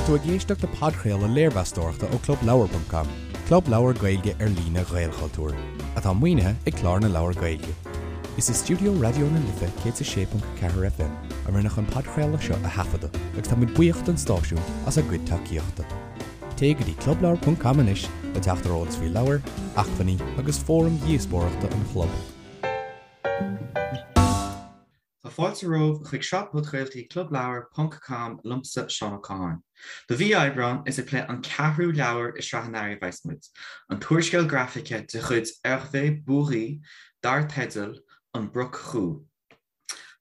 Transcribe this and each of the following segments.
Tá tú ag éisteacht le podchraoladh léirmheastóireachta ó ClubLeabhar.com, club leabhar Gaeilge ar líne Ghaelchultúir, atá maoinithe ag Clár na Leabhar Gaeilge. Is i stiúideo Raidió na Life 106.4 FM a rinneadh an podchraoladh seo a thaifeadadh agus tá muid buíoch don stáisiún as a gcuid tacaíochta. Téigh go dtí clubleabhar.com anois le teacht ar eolas faoi leabhair, acmhainní agus fóraim dhíospóireachta an chlub. Tá fáilte romhaibh chuig sraith podchraoltaí Clubleabhar ponc com liomsa Seán Ó Catháin. Do mhí Aibreáin, is ag plé an ceathrú leabhar i sraith an earraigh a bheas muid, an t-úrscéal grafaice de chuid Hervé Bourhis dar teideal An Broc Chú.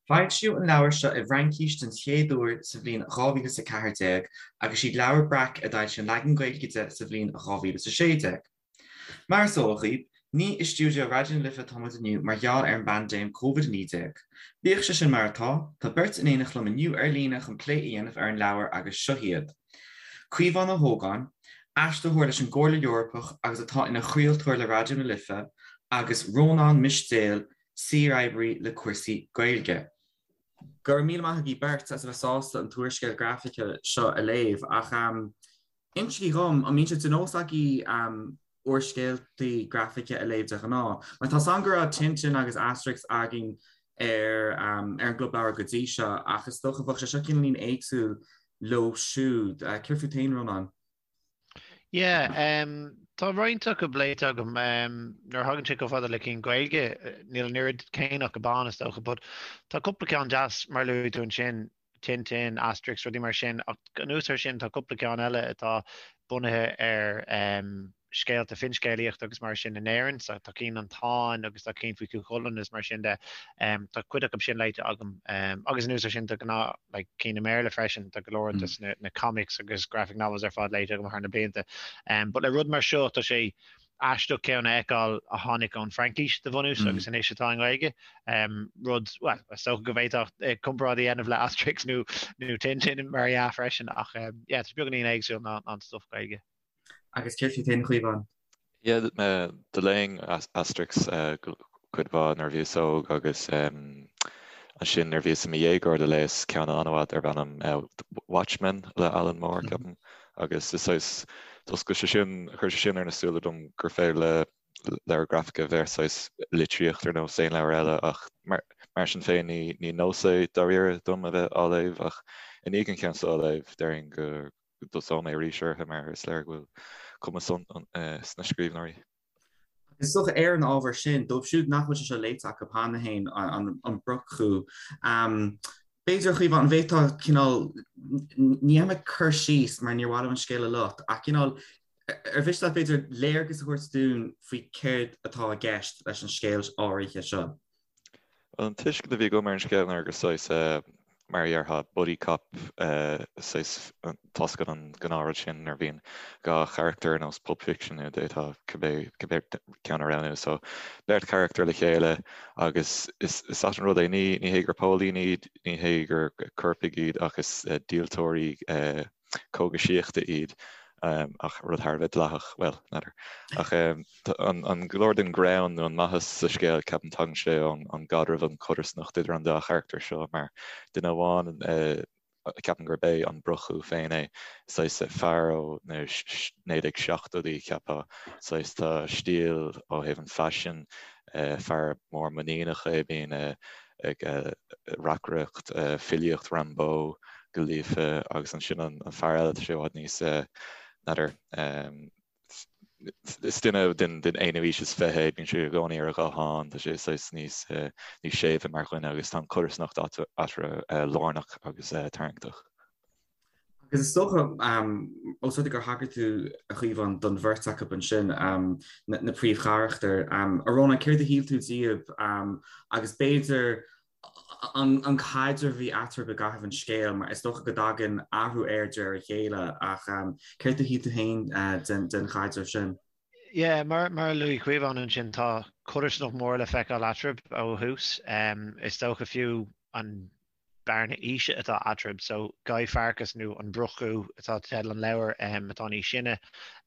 Foilsíodh an leabhar seo i bhFraincís den chéad uair sa bhliain 2014 agus siad Leabhar Breac a d'fhoilsigh an leagan Gaeilge de sa bhliain 2016. Mar is eol dhaoibh, ní i stiúideo Raidió na Life atá muid inniu mar gheall ar an bpaindéim Covid-19. Bíodh sé sin mar atá, tá beirt in éineacht liom inniu ar líne chun plé a dhéanamh ar an leabhar agus seo iad, Caomhán Ó hÓgáin, aistritheoir leis an gComhairle Eorpach agus atá ina chraoltóir le Raidió na Life, agus Rónán Mistéil, saoroibrí le cúrsaí Gaeilge. Go raibh míle maith agaibh beirt as a bheith sásta an t-úrscéal grafaice seo a léamh ach insígí dhom, an mbíonn sé de nós agaibh úrscéaltaí grafaice a léamh de ghnáth? Mar tá 's agam go raibh Tintin agus Asterix againn ar an gClub Leabhar go dtí seo ach is dócha bheadh sé seo cineáilín éagsúil leo siúd. Céard fút féin, Rónán? Yeah, tá roinnt acu léite agam. Nuair a thagann sé chomh fada le cinn Gaeilge, níl an oiread céanna acu ann is dócha, but tá cúpla ceann deas mar a luaigh tú ansin, Tintin, Asterix, rudaí mar sin, ach anuas air sin tá cúpla ceann eile atá bunaithe ar scéalta finscéalaíochta agus mar sin in Éirinn, so tá cinn An Táin agus tá cinn faoi Chú Chulainn agus mar sin de. Tá cuid acu sin léite agam. Agus anuas air sin tá gnáth like cinn i mBéarla freisin, tá go leor des na comics agus graphic novels ar fad léite agam thar na blianta. But le rud mar seo tá sé aisteach ceann a fheiceáil a tháinig ón Fraincis de bhunús agus anois atá i nGaeilge. Rud, well, is dócha go bhféadfá comparáid a dhéanamh le Asterix nó nó Tintin mar dhea freisin ach yeah, tá sé beagáinín éagsúil ná an stuff Gaeilge. Agus céard fút féin, a Chaomháin? Yeah, do léinn Asterix cuid mhaith nuair a bhíos óg agus ansin nuair a bhíos i mo dhéagóir do léas ceann an-mhaith darb ainm Watchmen le Alan Moore, ceapaim, agus is saghas, d'oscail sé sin, chuir sé sin ar na súile dom gur féidir le leabhar grafaice a bheith saghas litríocht ar nós aon leabhar eile ach mar sin féin ní nós é dáiríre dom a bheith á léamh ach i ndiaidh an ceann seo a léamh déarfainn go go dtosóidh mé arís orthu mar is léir go bhfuil cumas sna scríbhneoirí. Is dócha ar an ábhar sin, dóibh siúd nach bhfuil sé seo léite acu cheana féin, an Broc-Chú, b'fhéidir, a Chaomháin, an bhféadfá cineál, ní dhéanfaidh mé cur síos mar níor mhaith liom an scéal a loit, ach cineál, ar mhiste leat b'fhéidir léargas a thabhairt dúinn faoi céard atá i gceist leis an scéal áirithe seo? Bhuel, an tuiscint a bhí agam ar an scéal ná gur saghas, mar a dhéarfá, buddy cop, saghas, tá's agat an gnáthrud sin nuair a bhíonn dhá charachtar ar nós Pulp Fiction nó d'fhéadfá cibé ceann a roghnú. So, beirt charachtar le chéile agus is ait an rud é, ní hé gur póilíní iad, ní hé gur coirpigh iad ach is díoltóirí cógaisíochta iad, ach rud thar a bheith dleathach, bhuel, n'fheadar. Ach an go leor den ghreann nó an maitheas sa scéal, ceapaim, tagann sé ón gcaidreamh, an chodarsnacht idir an dá charachtar seo, mar duine amháin, ceapaim gurb é an Broc-Chú féin é, saghas fear ó na 1970idí, cheapfá, saghas tá stíl ó thaobh an faisin, fear mór muiníneach é, bíonn ag reacaireacht filíocht Rimbaud go líofa agus ansin an fear eile tá sé i bhfad níos, n'fheadar, is duine den aonú aois is fiche é, bíonn sé i gcónaí ar a ghuthán, tá sé saghas níos níos séimhe mar dhuine agus tá an chodarsnacht eatarthu lárnach agus tarraingteach. Agus is dócha, ós rud é gur thagair tú, a Chaomháin, don bheirt acu ansin, na príomhcharachtair, a Rónáin, céard a shíl tú díobh agus b'fhéidir an caidreamh a bhí eatarthu i gcaitheamh an scéil, mar is dócha go dtagann athrú air de réir a chéile, ach céard a shíl tú féin den chaidreamh sin? Yeah, mar a luaigh Caomhán ansin, tá codarsnacht mhór le feiceáil eatarthu ó thús. Is dócha fiú an bearna aoise atá eatarthu. So Guy Farkas nó an Broc-Chú atá teideal an leabhair atá níos sine.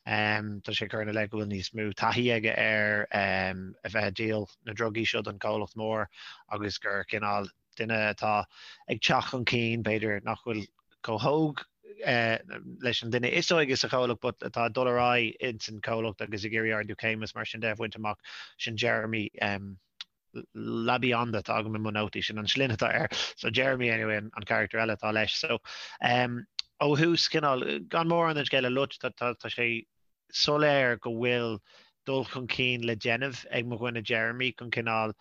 Tá sé ag cur ina leith go bhfuil níos mó taithí aige ar a bheith ag díol na ndrugaí seo don chomhlacht mór agus gur cineál duine atá ag teacht chun cinn, b'fhéidir nach bhfuil chomh hóg. leis an duine is óige sa chomhlacht but atá ag dul ar aghaidh ins an chomhlacht agus ag iarraidh ardú céime is mar sin de a bhaint amach, sin Jeremy LaBionda atá agam i mo nótaí, sin an sloinne atá air. So Jeremy anyway an charachtar eile atá leis. So ó thús cineál, gan mórán den scéal a loit, tá sé soiléir go bhfuil dul chun cinn le déanamh ag mo dhuine Jeremy chun cineál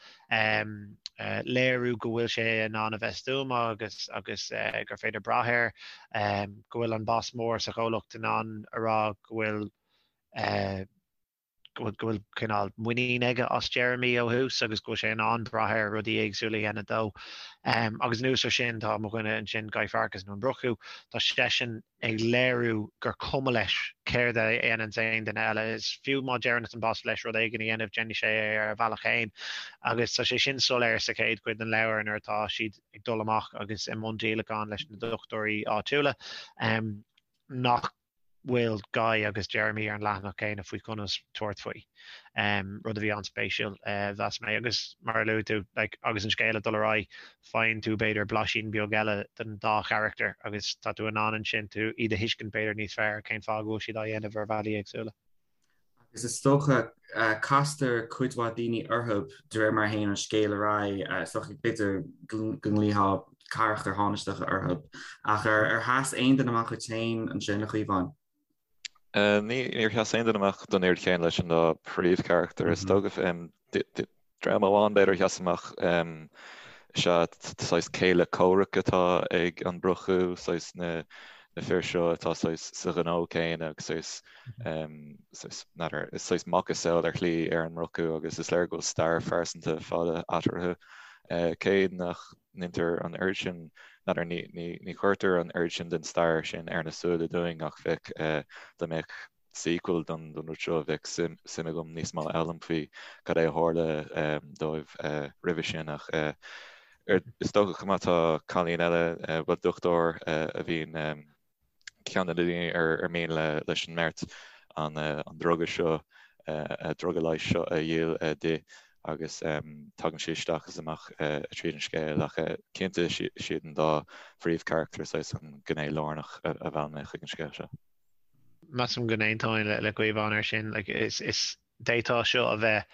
léiriú go bhfuil sé in ann a bheith stuama agus agus gur féidir brath air, go bhfuil an boss mór sa chomhlacht in ann a rá go bhfuil go bhfuil cineál muinín aige as Jeremy ó thús agus go bhfuil sé in ann brath air rudaí éagsúla a dhéanamh dó. Agus anuas ar sin tá mo dhuine ansin Guy Farkas nó an Brochú, tá seisean ag léiriú gur cuma leis céard a dhéananns aon duine eile. Is fiú má deireann an boss leis rud éigin a dhéanamh déanfaidh sé é ar a bhealach féin. Agus tá sé sin soiléir sa chéad chuid den leabhar nuair atá siad ag dul amach agus i mbun díolacháin leis na dochtúirí áitiúla nach bhfuil Guy agus Jeremy ar an leathanach céanna faoi conas tabhairt faoi. Rud a bhí an-spéisiúil, mheas mé. Agus mar a luaigh tú, like, agus an scéal ag dul ar aghaidh, faigheann tú b'fhéidir blaisín beag eile den dá charachtar agus tá tú in ann ansin tú iad a thuiscint b'fhéidir níos fearr cén fáth go bhfuil siad á dhéanamh ar bhealaí éagsúla. Agus is dócha, castar cuid mhaith daoine orthu de réir mar a théann an scéal ar aghaidh, is dócha b'fhéidir go nglaofá carachtair thánaisteacha orthu. Ach ar sheas aon duine amach duit féin ansin, a Chaomháin? Níor sheas aon duine amach don oiread chéanna leis an dá phríomhcharachtar, is dócha. Dream amháin b'fhéidir a sheas amach is ea saghas céile comhraic atá ag an Brochú, saghas na fir seo atá saghas sa ghnó céanna agus saghas, saghas, n'fheadar, is saghas macasamhail ar shlí ar an mBrochú agus is léir go bhfuil stair phearsanta fada eatarthu. Cé nach ndeintear an oiread sin, n'fheadar, ní, ní, ní chuirtear an oiread sin den stair sin ar na súile dúinn ach bheadh, dá mbeadh sequel don rud seo, bheadh suim agam níos mó a fhoghlaim faoi cad é a tharla dóibh roimhe sin ach is dócha chomh maith tá cailín eile, bhuel dochtúir a bhíonn ceann de na daoine ar mian leis an mbeirt an druga seo, druga leighis seo a dhíol di agus tagann sí isteach is amach tríd an scéal ach cinnte is iad an dá phríomhcharachtar saghas an gné lárnach a mheall mé chuig an scéal seo. Measaim go n-aontóinn le Caomhán air sin. Like, is, is, d'fhéadfá seo a bheith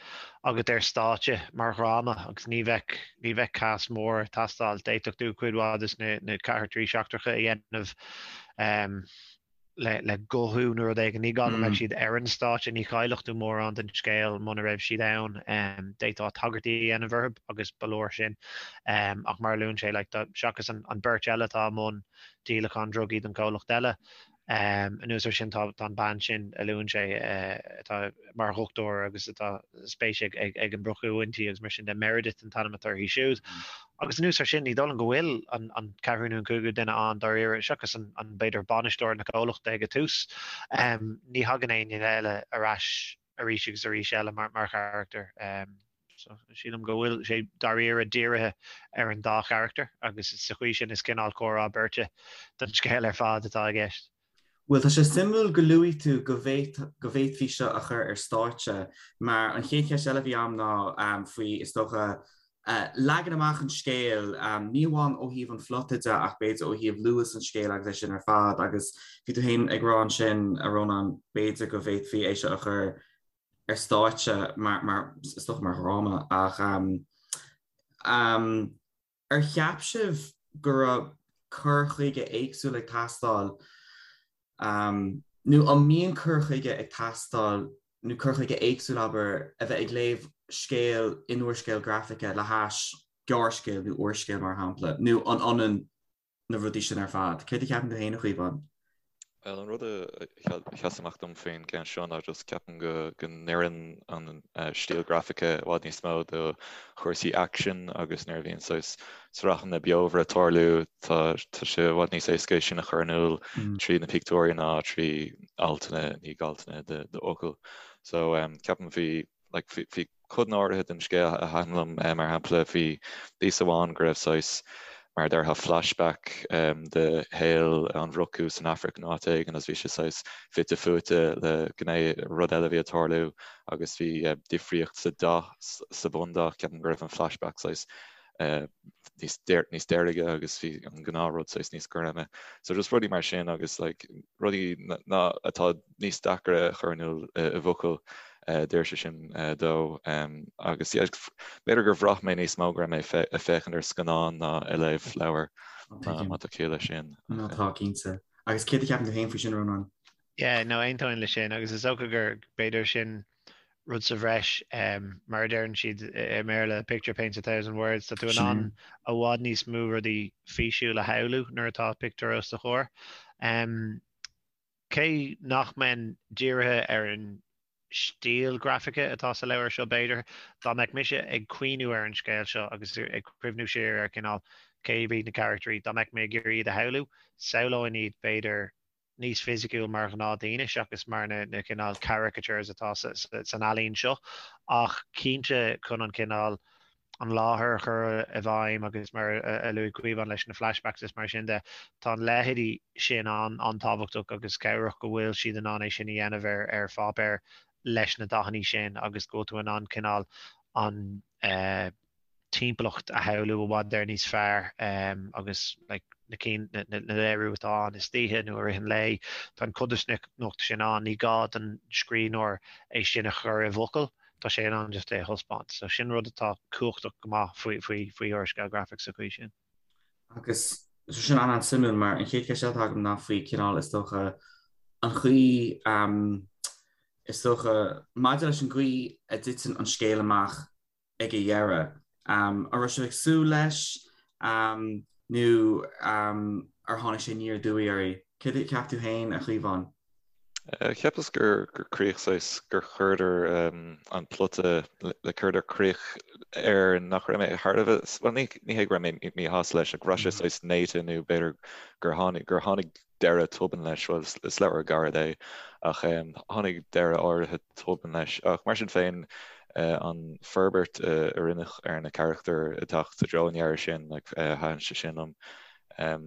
agat ar stáitse mar dhráma agus ní bheadh, ní bheadh cast mór ag teastáil. D'fhéadfadh tú cuid mhaith de na, na carachtarí seachtracha a dhéanamh um, le, le guthú nó rud éigin. Ní gá go mbeadh siad ar an stáitse, ní chaillfeadh tú mórán den scéal muna raibh siad ann. Um, d'fhéadfá tagairtí a dhéanamh orthu agus ba leor sin. Um, ach mar a luann sé, like, tá, seachas an, an beirt eile atá i mbun díolachán drugaí don chomhlacht eile, Anuas air sin tá an bean sin a luann sé atá mar dhochtúir agus atá spéis ag an Brochú inti agus mar sin de, Meredith an t-ainm atá uirthi siúd. Agus anuas air sin ní dóigh liom go bhfuil an ceathrú nó an cúigiú duine ann dáiríre, seachas an b'fhéidir bainisteoir na comhlachta ag an tús. Ní thagann éinne eile ar ais arís agus arís eile mar charachtar. So, sílim go bhfuil sé dáiríre dírithe ar an dá charachtar agus sa chaoi sin is cineál comhrá beirte don scéal ar fad atá i gceist. Bhuel, tá sé suimiúil go luaigh tú go bhféadfaí seo a chur ar stáitse mar an chéad cheist eile a bhí agam ná faoi, is dócha, leagan amach an scéil, ní amháin ó thaobh an phlota de ach b'fhéidir ó thaobh luas an scéil agus é sin ar fad agus bhí tú féin ag rá ansin, a Rónáin, b'fhéidir go bhféadfaí é seo a chur ar stáitse mar, mar, is dócha mar dhráma ach ar cheap sibh go raibh cur chuige éagsúil ag teastáil nó an mbíonn cur chuige ag teastáil nó cur chuige éagsúil, abair, a bheith ag léamh scéal in úrscéal grafaice le hais gearrscéal nó úrscéal mar shampla nó an ionann na rudaí sin ar fad. Céard a cheapann tú féin, a Chaomháin? Bhuel, an rud a sheas amach dom faoin gceann seo ná just ceapaim go go n-oireann an stíl grafaice i bhfad níos mó do chúrsaí aicsin agus nuair a bhíonn saghas sraitheanna beomhara ag tarlú tá tá sé i bhfad níos éasca é sin a chur in iúl trí na pictiúirí ná trí altanna ní altanna de d'fhocail. So ceapaim bhí like bhí codanna áirithe den scéal a thaitin liom, mar shampla bhí píosa amháin go raibh saghas, mar a déarfá, flashback de shaol an Bhrochú san Afraic nó áit éigin agus bhí sé saghas fite fuaite le gné, rud eile a bhí ag tarlú agus bhí difríocht sa dath, sa bhundath, ceapaim go raibh an flashback saghas. Níos níos deirge agus bhí an gnáthrud saghas níos goirme. So just rudaí mar sin agus like rudaí ná atá níos deacra a chur in iúl i bhfocail deir sé sin dó agus yeah b'fhéidir gur bhraith mé níos mó go raibh mé ag féachaint ar scannán ná ag léamh leabhar má tá ciall leis sin. Nó tá cinnte. Agus céard a cheapann tú féin faoi sin, Rónán? Yeah, no, aontaím leis sin agus is dócha gur b'fhéidir sin rud sa bhreis, mar a deireann siad i mBéarla, picture paints a thousand words, tá tú in ann i bhfad níos mó rudaí físiúil a shamhlú nuair atá pictiúr os do chomhair. Cé nach mbeinn dírithe ar an stíl grafaice atá sa leabhar seo b'fhéidir, dá mbeadh mise ag cuimhniú ar an scéal seo agus ag cuimhniú siar ar cineál cé hiad na carachtraí, dá mbeadh mé ag iarraidh iad a shamhlú, samhlóinn iad b'fhéidir níos fisiciúil mar ghnáthdaoine seachas mar na cineál caricatures atá san ealaín seo ach cinnte chun an cineál an láthair a chur i bhfeidhm agus mar a luaigh Caomhán leis na flashbacks is mar sin de, tá an leithéidí sin an-tábhachtach agus cabhrach go bhfuil siad in ann é sin a dhéanamh ar ar pháipéar leis na dathanna sin agus go bhfuil tú in ann cineál an timpeallacht a shamhlú i bhfad ar níos fearr agus like na cinn na léiriú atá ann istoíche nó i rith an lae, tá an codarsnacht sin ann, ní gá don scríbhneoir é sin a chur i bhfocail, tá sé in ann just é a thaispeáint. So sin rud atá cumhachtach go maith faoi faoi faoi úrscéal grafach sa chaoi sin. Agus so sin an-an-suimiúil mar an chéad cheist eile atá agam ná faoi cineál is dócha an chaoi is dócha maidir leis an gcaoi a dtiteann an scéal amach ag a dheireadh. An raibh sibh ag súil leis nó ar tháinig sé aniar aduaidh oraibh? Céard a cheap tú féin, a Chaomháin? Cheapas gur críoch saghas, gur chuireadar an plota, le chuireadar críoch air nach raibh mé thar a bheith, bhuel ní hé go raibh mé míshásta leis, ach go raibh sé saghas néata nó b'fhéidir gur tháinig, gur tháinig deireadh tobann leis, bhuel is leabhar gairid é, ach tháinig deireadh áirithe tobann leis. Ach mar sin féin, an forbairt a rinneadh ar na carachtair ag teacht i dtreo an dheiridh sin, thaitin sé sin liom.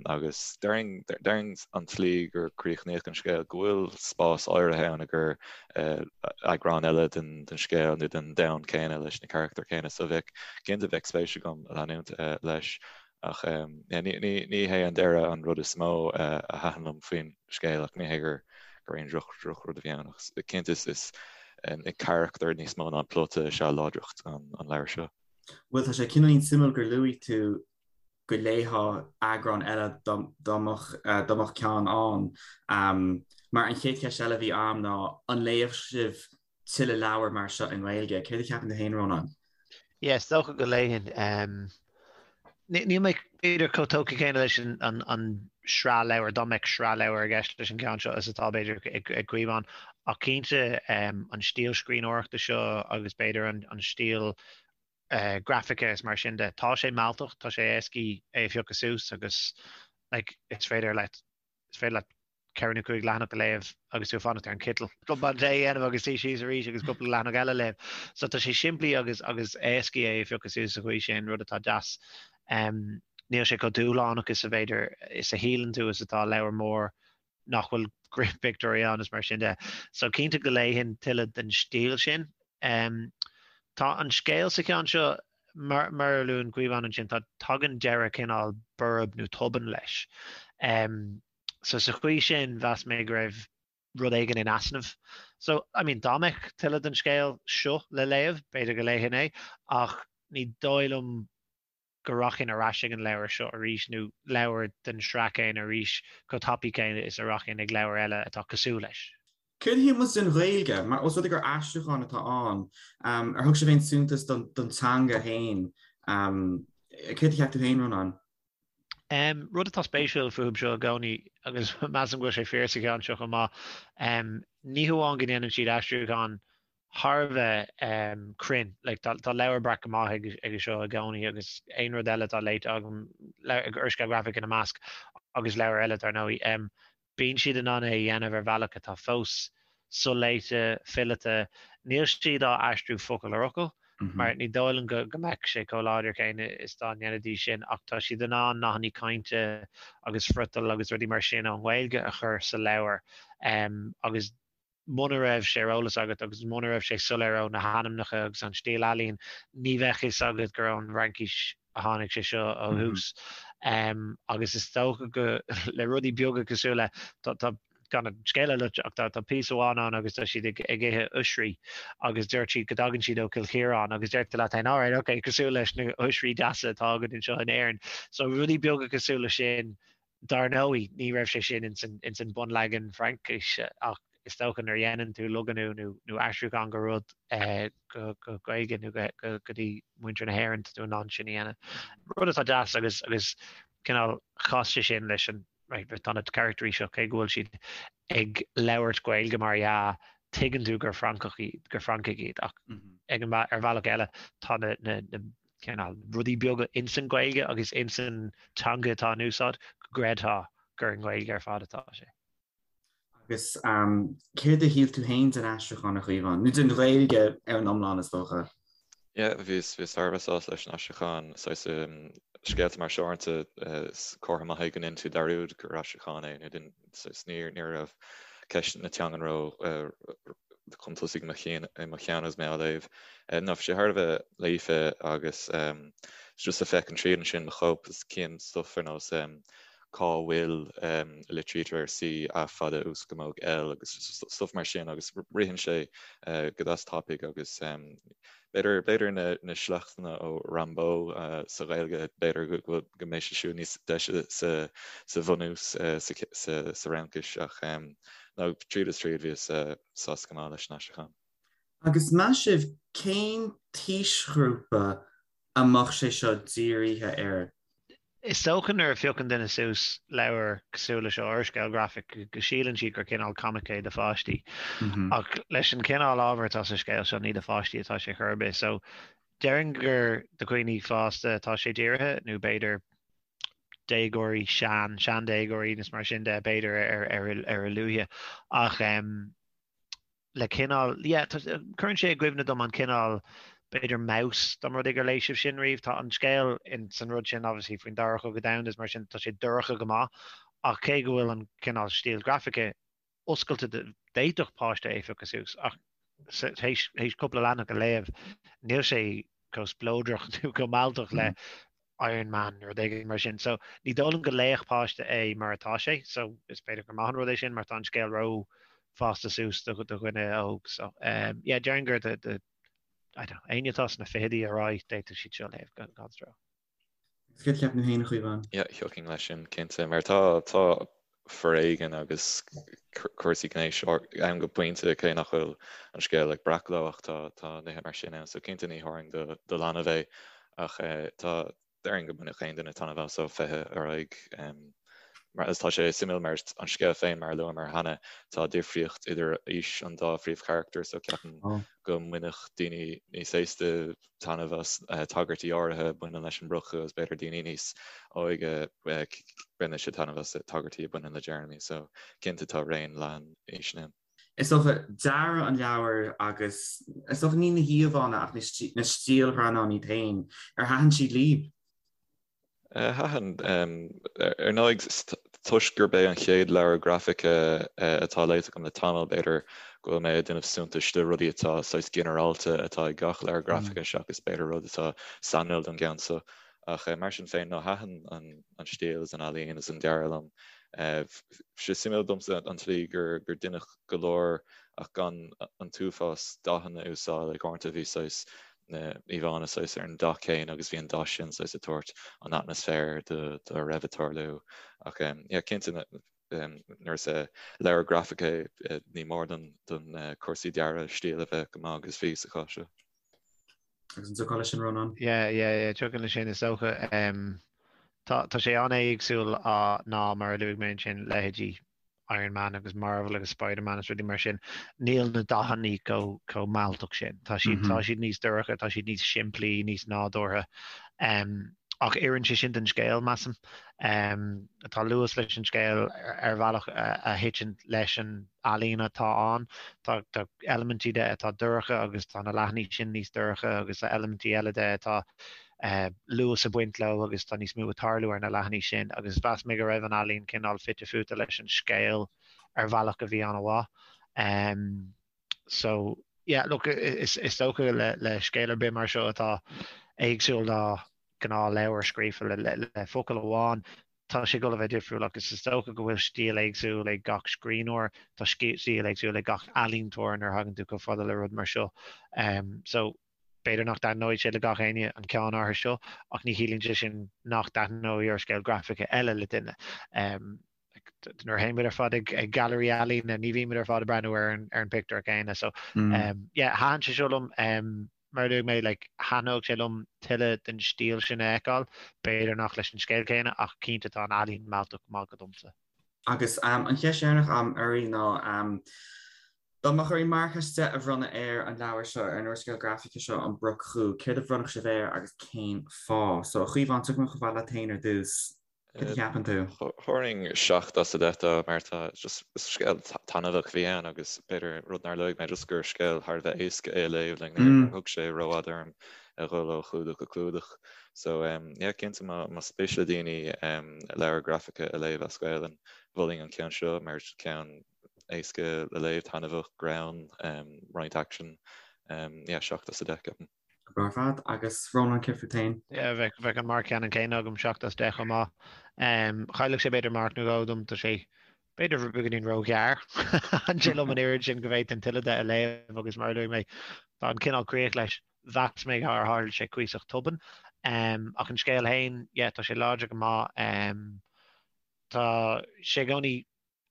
Agus déarfainn an tslí gur críochnaíodh an scéal, go bhfuil spás áirithe ann i gcomhair eagrán eile den scéal nó den domhan céanna leis na carachtair céanna. So bheadh, cinnte bheadh spéis agam leanúint leis. Ach ní hé an deireadh an rud is mó a thaitin liom faoin scéal, ach ní hé gur aon drochrud a bhí ann. Ach cinnte is na carachtair níos mó ná an plota is ea láidreacht an leabhair seo. Bhuel, tá sé cineáilín suimiúil gur luaigh tú go léifeá eagrán eile dá mbeadh ceann ann. Mar an chéad cheist eile a bhí a'm ná an léifeadh sibh tuilleadh leabhar mar seo i nGaeilge. Céard a cheapann tú féin, Rónán? Yeah, is dócha go léifinn. Níl mé b'fhéidir chomh tógtha céanna leis an sraith leabhar, dá mbeadh sraith leabhar i gceist leis an gceann seo is atá b'fhéidir ag Caomhán, ach cinnte an stíl scríbhneoireachta seo agus b'fhéidir an stíl grafaice is mar sin de, tá sé mealltach, tá sé éascaí é a phiocadh suas agus like is féidir leat, is féidir leat ceithre nó cúig leathanach a léamh agus tú ag fanacht ar an citeal. Cupán tae a dhéanamh agus suí síos arís agus cúpla leathanach eile a léamh. So tá sé simplí agus agus éascaí é a phiocadh suas sa chaoi sin, rud atá deas. Níl sé chomh dúshlánach is a b'fhéidir is a shíleann tú is atá leabhar mór nach bhfuil pictiúirí ann is mar sin de. So cinnte go léifinn tuilleadh den stíl sin. Tá an scéal sa cheann seo mar a luann Caomhán ansin, tá tagann deireadh cineál borb nó tobann leis. So sa chaoi sin, mheas mé go raibh rud éigin in easnamh. So, I mean, dá mbeadh tuilleadh den scéal seo le léamh, b'fhéidir go léifinn é, ach ní dóigh liom go rachainn ar ais ag an leabhar seo arís nó leabhar den sraith céanna arís chomh tapaidh céanna is a rachainn ag leabhar eile atá cosúil leis. Céard a shíl muid den Ghaeilge? Mar os rud é gur aistriúchán atá ann, ar thug sibh aon suntas don teanga féin? Céard a cheap tú féin, Rónán? Rud atá spéisiúil fúthu seo i gcónaí, agus measaim go bhfuil sé fíor sa cheann seo chomh maith, ní hamháin go ndéanann siad aistriúchán thar a bheith cruinn, like tá Leabhar Breac go maith aige seo i gcónaí agus aon rud eile atá léite agam, úrscéal grafach ina measc agus leabhair eile dar ndóigh. Bíonn siad in ann é a dhéanamh ar bhealach atá fós soléite, fileata. Níl siad á aistriú focal ar fhocal, mar ní dóigh liom go mbeadh sé chomh láidir céanna is dá ndéanfaidís sin, ach tá siad in ann nathanna cainte agus friotal agus rudaí mar sin ón nGaeilge a chur sa leabhar agus. Muna raibh sé ar eolas agat agus muna raibh sé soiléir ó na hainmneacha agus an stíl ealaíon, ní bheadh fhios agat gur ón bhFraincis a tháinig sé seo ó thús. Agus is dócha go le rudaí beaga cosúil le, tá, gan an scéal a loit ach tá píosa amháin ann agus tá siad ag ithe oisrí agus deir siad go dtagann siad ó Cill Chiaráin agus deir tú leat féin, alright, ok, cosúil leis na hoisrí deasa atá againn anseo in Éirinn. So rudaí beaga cosúil le sin, Dar ndóigh, ní raibh sé sin ins an bunleagan Fraincise ach is dócha nuair a dhéanann tú logannú nó aistriúchán go rud go Gaeilge nó go dtí muintir na hÉireann, tá tú in ann sin a dhéanamh. Rud atá deas agus agus cineál chas sé sin leis an, right, tá na caractairí seo, cé go bhfuil siad ag labhairt Gaeilge mar dhea, tuigeann tú gur Francach iad, gur Francaigh iad ach ag an, ar bhealach eile tá na, na, na cineál rudaí beaga ins an Ghaeilge agus ins an teanga atá in úsáid go gcreidfeá gur i nGaeilge ar fad atá sé. Agus céard a shíl tú féin den aistriúchán, a Chaomháin? Nó den Ghaeilge ar an iomlán, is dócha? Yeah, bhíos, bhíos thar a bheith sásta leis an aistriúchán. Saghas scéalta mar seo uaireanta, is comhartha maith é go ndéanann tú dearúd gur aistriúchán é nó saghas ní raibh ceist na teangan ró chun tosaigh i mo chinn i mo cheann agus mé á léamh. Ná bhí sé thar a bheith líofa agus just ag féachaint tríd ansin mo chóip is cím stuff ar nós cá bhfuil a litrítear ar C A fada uascamóg L agus stuff mar sin agus ritheann sé go deas tapaidh agus B'fhéidir, b'fhéidir na, na sleachtanna ó Rimbaud sa Ghaeilge, b'fhéidir go, go mbeidh sé siúd níos deise sa, sa bhunús, sa, sa, sa Fhraincis ach no, tríd is tríd bhíos sásta go maith leis an aistriúchán. Agus meas sibh cén t-aoisghrúpa a mbeadh sé seo dírithe air? Is dócha nuair a phiocann duine suas leabhar cosúil le seo, úrscéal grafach, go síleann siad gur cineál comic é do pháistí. Ach leis an chineál ábhair atá sa scéal seo, ní do pháistí atá sé chor ar bith. So, déarfainn gur do dhaoine fásta atá sé dírithe, nó b'fhéidir déagóirí, sean, seandéagóirí nó mar sin de, b'fhéidir ar a luaithe. Ach. le cineál, yeah, cuireann sé i gcuimhne dom an cineál, b'fhéidir Maus, dá mba rud é gur léigh sibh sin riamh. Tá an scéal in san rud sin obviously faoin Dara Cogadh Domhanda is mar sin tá sé dorcha go maith ach cé go bhfuil an cineál stíl grafaice oscailte d'fhéadfadh páiste é a phiocadh suas ach théis cúpla leathanach a léamh níl sé chomh spleodrach nó chomh mealltach le Iron Man nó rud éigin mar sin. So ní dóigh liom go léifeadh páiste é mar atá sé, so is féidir gur maith an rud é sin mar tá an scéal ró fásta suas do dhuine óg. So um, yeah, déarfainn gur do, do, I don't know, éinne atá sna fichidí ar aghaidh d'fhéadfadh siad seo a léamh gan, gan stró. Agus céard a cheapann tú féin, a Chaomháin? Yeah, thiocfainn leis sin, cinnte, mar tá, tá foréigean agus cúrsaí gnéis ann go pointe, cé nach bhfuil an scéal ag breacadh leo ach tá, tá nithe mar sin ann, so cinnte ní thabharfainn do, do leanbh é ach tá, déarfainn go mbainfeadh aon duine taitneamh as ó 20 ar aghaidh. Mar, agus tá sé suimiúil mar an scéal féin mar a luamar cheana, tá difríocht idir aois an dá phríomhcharachtar so ceapaim go mbainfeadh daoine níos aosta taitneamh as tagairtí áirithe a bhaineann leis an mbrocach agus b'fhéidir daoine níos óige bainfidh siad taitneamh as tagairtí a bhaineann le Jeremy so cinnte tá raon leathan aoiseanna ann. Is dócha, dearadh an leabhair agus is dócha ní na híomhánna ach na stiallghreannáin iad féin, ar thaitin siad libh? Thaitin. Ar ndóigh, toisc gurb é an chéad leabhar grafaice atá léite agam le tamall, b'fhéidir go bhfuil mé ag déanamh suntais de rudaí atá saghas ginearálta atá ag gach leabhar grafaice seachas b'fhéidir rud atá sainiúil don gceann seo. Ach mar sin féin, no, thaitin an stíl is an ealaín is an dearadh liom. Bhí sé suimiúil domsa an tslí gur deineadh go leor ach gan an t-uafás dathanna a úsáid, like uaireanta bhí saghas na íomhánna saghas ar an dath céanna agus bhí an dath sin saghas ag tabhairt an atmaisféar do a raibh ag tarlú. Ach yeah, cinnte nuair is leabhar grafaice é ní mór don don cúrsaí dearaidh stíl a bheith go maith agus bhí sa chás seo. Agus an dtiocfá leis sin, Rónán? Yeah, yeah, yeah, tiocfainn leis sin is dócha. Tá tá sé an-éagsúil ná mar a luaigh mé ansin leithéidí Iron Man agus Marvel agus Spider-Man agus rudaí mar sin, níl na dathanna chomh chomh mealltach sin. Tá siad tá siad níos dorcha, tá siad níos simplí, níos nádúrtha. Um, ach oireann sé sin don scéal, measaim. Um, tá luas leis an scéal ar bhealach a, a thiteann leis an ealaín atá ann. Tá, tá eilimintí de atá dorcha agus tá na leathanaigh sin níos dorcha agus tá eilimintí eile de atá luas ag baint leo agus tá níos mó ag tarlú ar na leathanaigh sin agus mheas mé go raibh an ealaín cineál fite fuaite leis an scéal ar bhealach a bhí an-mhaith. So yeah, look, is dócha le scéal ar bith mar seo atá éagsúil ná gnáthleabhar scríofa le focal amháin, tá sé ag dul a bheith difriúil agus is dócha go bhfuil stíl éagsúil ag gach scríbhneoir, tá stíl éagsúil ag gach ealaíontóir nuair a thagann tú chomh fada le rud mar seo. So b'fhéidir nach dtaitneoidh sé le gach éinne an ceann áirithe seo ach ní chiallaíonn sé sin nach dtaitneoidh úrscéal grafaice eile le duine. Nuair a théann muid ar fad ag gailearaí ealaíne ní bhíonn muid ar fad ag breathnú ar an pictiúr céanna. So yeah, thaitin sé seo liom. Mar a luaigh mé, like, thaitneodh sé liom tuilleadh den stíl sin a fheiceáil, b'fhéidir nach leis an scéal céanna ach cinnte tá an ealaín mealltach go maith go domsa. Agus an cheist dheireanach a'm oraibh ná, dá mbeadh oraibh marc as 10 a bhronnadh ar an leabhar seo, ar an úrscéal grafaice seo, An Broc Dhubh, céard a bhronnfadh sibh air agus cén fáth? So, a Chaomháin, tiocfaidh mé chomh fada leat féin ar dtús. Cad a cheapann tú? Thabharfainn 7 as 10 dó mar tá just scéal taitneamhach a bhí ann agus b'fhéidir rud nár luaigh mé just gur scéal thar a bheith éasca é a léamh like níor thóg sé rófhada orm a dhul ó chlúdach go clúdach. So yeah cinnte má más spéis le daoine leabhar grafaice a léamh as Gaelainn mholfainn an ceann seo mar ceann éasca le léamh, taitneamhach, greann, roinnt aicsin. Yeah 7 as 10 ceapaim. Go breá ar fad. Agus Rónán, céard fút féin? Yeah, bheadh, bheadh an marc ceannann céanna agam, 7 as 10 chomh maith. Chaillfeadh sé b'fhéidir marc nó dhó dom, tá sé b'fhéidir beagáinín róghearr. Thaitin sé liom an oiread sin go bhféadfainn tuilleadh de a léamh agus mar a luaigh mé, tá an cineál críoch leis. Mheas mé gur tharla sé cuíosach tobann. Ach an scéal féin, yeah, tá sé láidir go maith. Tá sé i gcónaí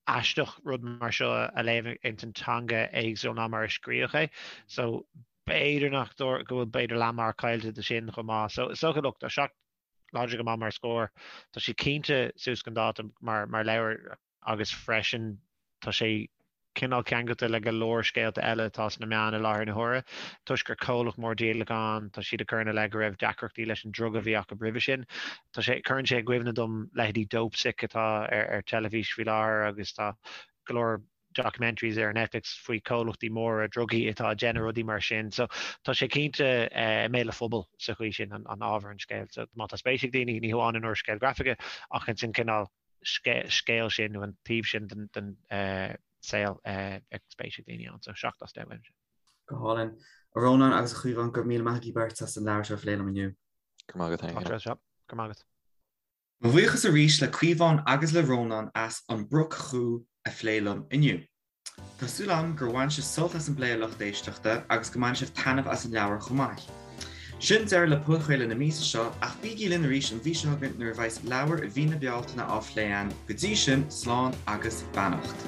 aisteach rud mar seo a léamh ins an teanga éagsúil ná mar a scríodh é. So b'fhéidir nach go bhfuil b'fhéidir leathmharc caillte de sin chomh maith. So is dócha look tá 7 láidir go maith mar scór. Tá sé cinnte suas chun dáta mar mar leabhar agus freisin tá sé cineál ceangailte le go leor scéalta eile atá sna meáin i láthair na huaire. Toisc gur comhlacht mór díolacháin, tá siad ag cur ina leith go raibh deacrachtaí leis an druga a bhí acu roimhe sin. Tá sé, cuireann sé i gcuimhne dom leithéidí Dopesick atá ar ar teilifís faoi láthair agus tá go leor documentaries ar Netflix faoi comhlachtaí móra drugaí atá ag déanamh rudaí mar sin. So tá sé cinnte i mbéal an phobail sa chaoi sin, an an ábhar an scéil. So má tá spéis ag daoine, ní hamháin in úrscéal grafaice ach ins an cineál scéal sin nó an taobh sin den den saol, bheadh spéis ag daoine ann. So 7 as 10 uaimse. Go hálainn. A Rónáin agus a Chaomháin, go raibh míle maith agaibh beirt as an leabhar seo a phlé liom inniu. Go raibh maith agat féin. Go raibh maith agat. Mo bhuíochas arís le Caomhán agus le Rónán as An Broc Dhubh a phlé liom inniu. Tá súil agam gur bhain sibh sult as an bplé a lucht éisteachta agus go mbainfidh sibh taitneamh as an leabhar chomh maith. Sin deireadh le podchraoladh na míosa seo ach bígí linn arís an mhí seo chugainn nuair a bheas leabhar mhí na Bealtaine á phlé againn. Go dtí sin, slán agus beannacht.